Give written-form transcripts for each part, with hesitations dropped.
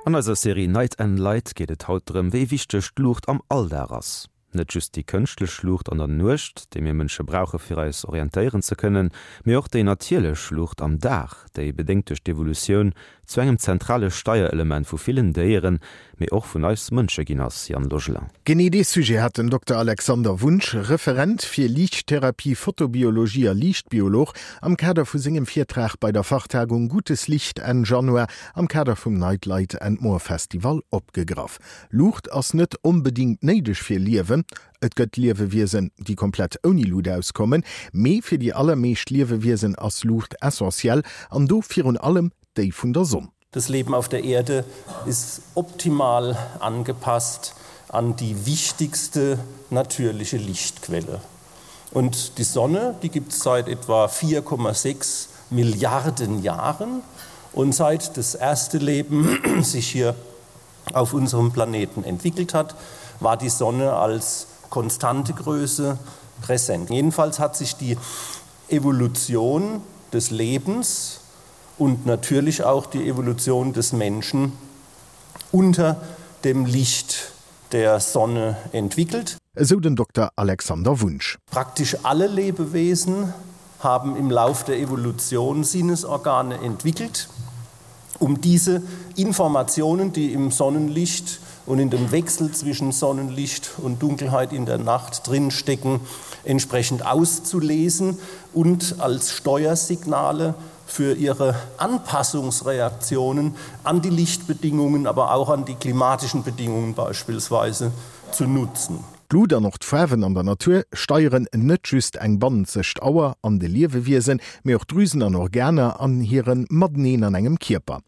An eiser Serie Night and Light geet et haut drëm, wéi wichteg d'Luucht am Alldag ass. Net just déi kënschtlech Luucht an der Nuecht, déi mir Mënsche brauche fir eis orientéieren ze kënnen, mee och déi natierlech Luucht am Dag, déi bedéngt duerch d'Evolutioun zu engem zentrale Steierelement vu villen Déieren, mee och vun eis Mënsche ginn ass, Yann Logelin. Genee dee Sujet hat den Dokter Alexander Wunsch, Referent fir Liichttherapie, Photobiologie a Liichtbiolog, am Kader vu sengem Virtrag bei der Fachtagung Gutes Licht Enn Januar am Kader vum Night Light and More Festival opgegraff. Luucht ass net onbedingt néideg fir Liewen. Et gëtt Liewewiesen, déi komplett ouni Luut auskommen, mee fir déi allermeescht Liewewiesen ass Luucht essentiell an do virun allem déi vun der Sonn. Das Leben auf der Erde ist optimal angepasst an die wichtigste natürliche Lichtquelle. Und die Sonne, die gibt es seit etwa 4,6 Milliarden Jahren und seit das erste Leben sich hier auf unserem Planeten entwickelt hat, war die Sonne als konstante Größe präsent. Jedenfalls hat sich die Evolution des Lebens und natürlich auch die Evolution des Menschen unter dem Licht der Sonne entwickelt. Esou den Dokter Alexander Wunsch. Praktisch alle Lebewesen haben im Lauf der Evolution Sinnesorgane entwickelt, um diese Informationen, die im Sonnenlicht und in dem Wechsel zwischen Sonnenlicht und Dunkelheit in der Nacht drinstecken, entsprechend auszulesen und als Steuersignale für ihre Anpassungsreaktionen an die Lichtbedingungen, aber auch an die klimatischen Bedingungen beispielsweise zu nutzen. D'Lut an och d'Faarwen an der Natur steieren net just eng bannenzegt Auer an de Liewewiesen, mee och Drüsen an Organer an hire Mateneen an engem Kierper.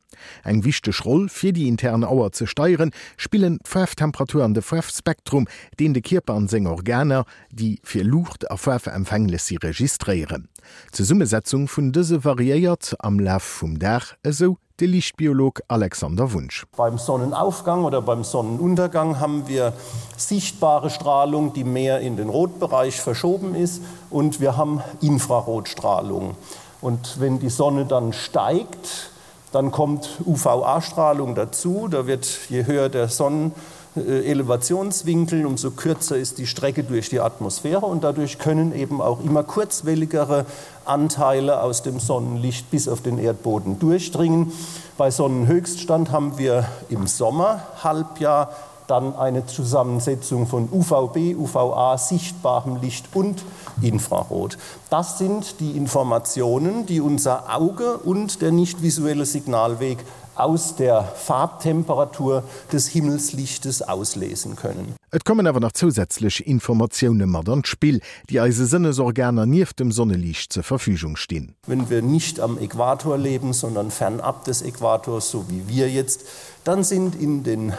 Eng wichteg Roll fir déi intern Auer ze steieren, spillen d'Faarftemperatur an de Faarfspektrum, deen de Kierper an seng Organer, déi fir Luucht a Faarf empfänglech si, registréieren. D'Zesummesetzung vun dëse variéiert am Laf vum Dag, esou de Liichtbiolog Alexander Wunsch. Beim Sonnenaufgang oder beim Sonnenuntergang haben wir sichtbare Strahlung, die mehr in den Rotbereich verschoben ist und wir haben Infrarotstrahlung. Und wenn die Sonne dann steigt, Dann kommt UVA-Strahlung dazu, da wird je höher der Sonnenelevationswinkel, umso kürzer ist die Strecke durch die Atmosphäre und dadurch können eben auch immer kurzwelligere Anteile aus dem Sonnenlicht bis auf den Erdboden durchdringen. Bei Sonnenhöchststand haben wir im Sommerhalbjahr dann eine Zusammensetzung von UVB, UVA, sichtbarem Licht und Infrarot. Das sind die Informationen, die unser Auge und der nicht visuelle Signalweg aus der Farbtemperatur des Himmelslichtes auslesen können. Et kommen awer nach zousätzlech Informatioune mat an d'Spill, déi eise Sënnesorganer nieft dem Sonneliicht zur Verfügung stinn. Wenn wir nicht am Äquator leben, sondern fernab des Äquators, so wie wir jetzt, dann sind in den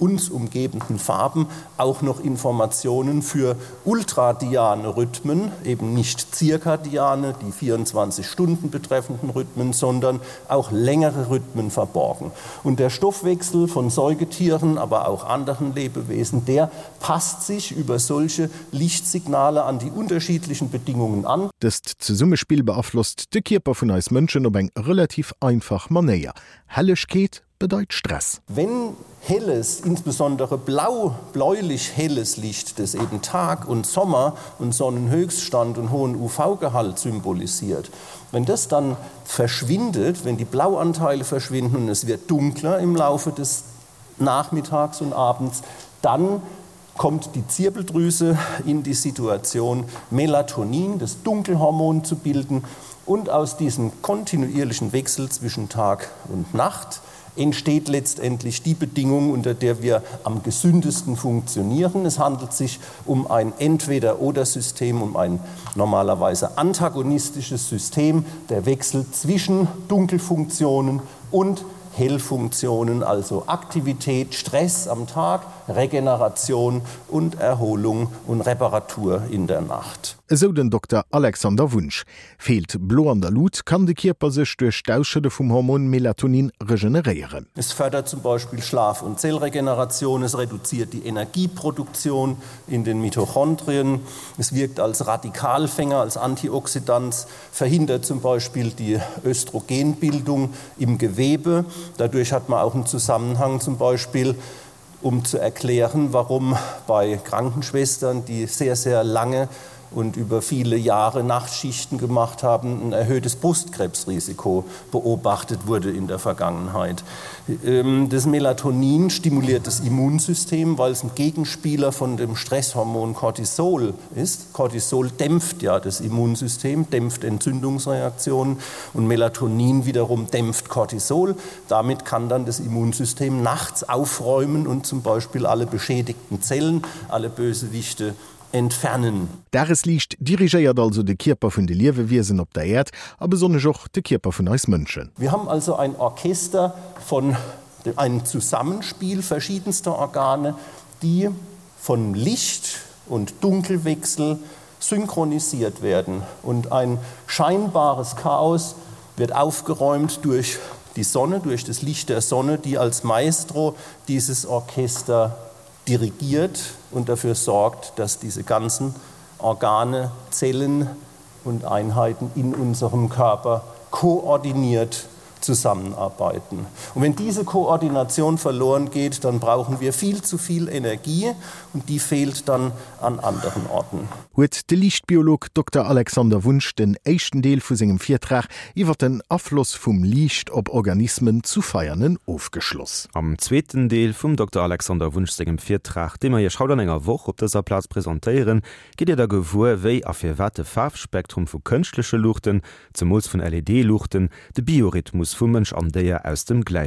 uns umgebenden Farben auch noch Informationen für ultradiane Rhythmen, eben nicht zirkadiane, die 24 Stunden betreffenden Rhythmen, sondern auch längere Rhythmen verborgen. Und der Stoffwechsel von Säugetieren, aber auch anderen Lebewesen, der passt sich über solche Lichtsignale an die unterschiedlichen Bedingungen an. Dëst Zesummespill beaflosst de Kierper vun eis Mënschen op eng relativ einfach Manéier. Hellegkeet bedeit Stress. Wenn helles, insbesondere blau, bläulich helles Licht, das eben Tag und Sommer und Sonnenhöchststand und hohen UV-Gehalt symbolisiert, wenn das dann verschwindet, wenn die Blauanteile verschwinden und es wird dunkler im Laufe des Nachmittags und Abends, dann kommt die Zirbeldrüse in die Situation, Melatonin, das Dunkelhormon zu bilden und aus diesem kontinuierlichen Wechsel zwischen Tag und Nacht entsteht letztendlich die Bedingung, unter der wir am gesündesten funktionieren. Es handelt sich um ein Entweder-oder-System, um ein normalerweise antagonistisches System, der Wechsel zwischen Dunkelfunktionen und Hellfunktionen, also Aktivität, Stress am Tag, Regeneration und Erholung und Reparatur in der Nacht. Esou den Dokter Alexander Wunsch. Feelt Blo an der Lut, kann de Kierper sech duerch d'Ausschëdde vum Hormon Melatonin regeneréieren. Es fördert zum Beispiel Schlaf und Zellregeneration, es reduziert die Energieproduktion in den Mitochondrien, es wirkt als Radikalfänger, als Antioxidans, verhindert zum Beispiel die Östrogenbildung im Gewebe. Dadurch hat man auch einen Zusammenhang zum Beispiel, um zu erklären, warum bei Krankenschwestern, die sehr, sehr lange und über viele Jahre Nachtschichten gemacht haben, ein erhöhtes Brustkrebsrisiko beobachtet wurde in der Vergangenheit. Ähm, das Melatonin stimuliert das Immunsystem, weil es ein Gegenspieler von dem Stresshormon Cortisol ist. Cortisol dämpft ja das Immunsystem, dämpft Entzündungsreaktionen und Melatonin wiederum dämpft Cortisol. Damit kann dann das Immunsystem nachts aufräumen und zum Beispiel alle beschädigten Zellen, alle Bösewichte entfernen. Dagesliicht dirigéiert also de Kierper vun de Liewewiesen op der Äerd a besonnesch och de Kierper vun eis Mënschen. Wir haben also ein Orchester von einem Zusammenspiel verschiedenster Organe, die von Licht und Dunkelwechsel synchronisiert werden und ein scheinbares Chaos wird aufgeräumt durch die Sonne, durch das Licht der Sonne, die als Maestro dieses Orchester dirigiert und dafür sorgt, dass diese ganzen Organe, Zellen und Einheiten in unserem Körper koordiniert zusammenarbeiten. Und wenn diese Koordination verloren geht, dann brauchen wir viel zu viel Energie und die fehlt dann an anderen Orten. Huet de Liichtbiolog Dokter Alexander Wunsch den éischten Deel vu sengem Virtrag iwwer den Afloss vum Liicht op Organismen zu Veianen ofgeschloss. Am zweeten Deel vum Dokter Alexander Wunsch sengem Virtrag, dee mer Iech haut an enger Woch op dëser Plaz presentéieren, gitt Dir da gewuer, wéi a firwat de Faarfspektrum vu kënschtleche Luuchten, zemools vun LED-Luuchten, de Biorhythmus vu Mënsch an Déier aus dem.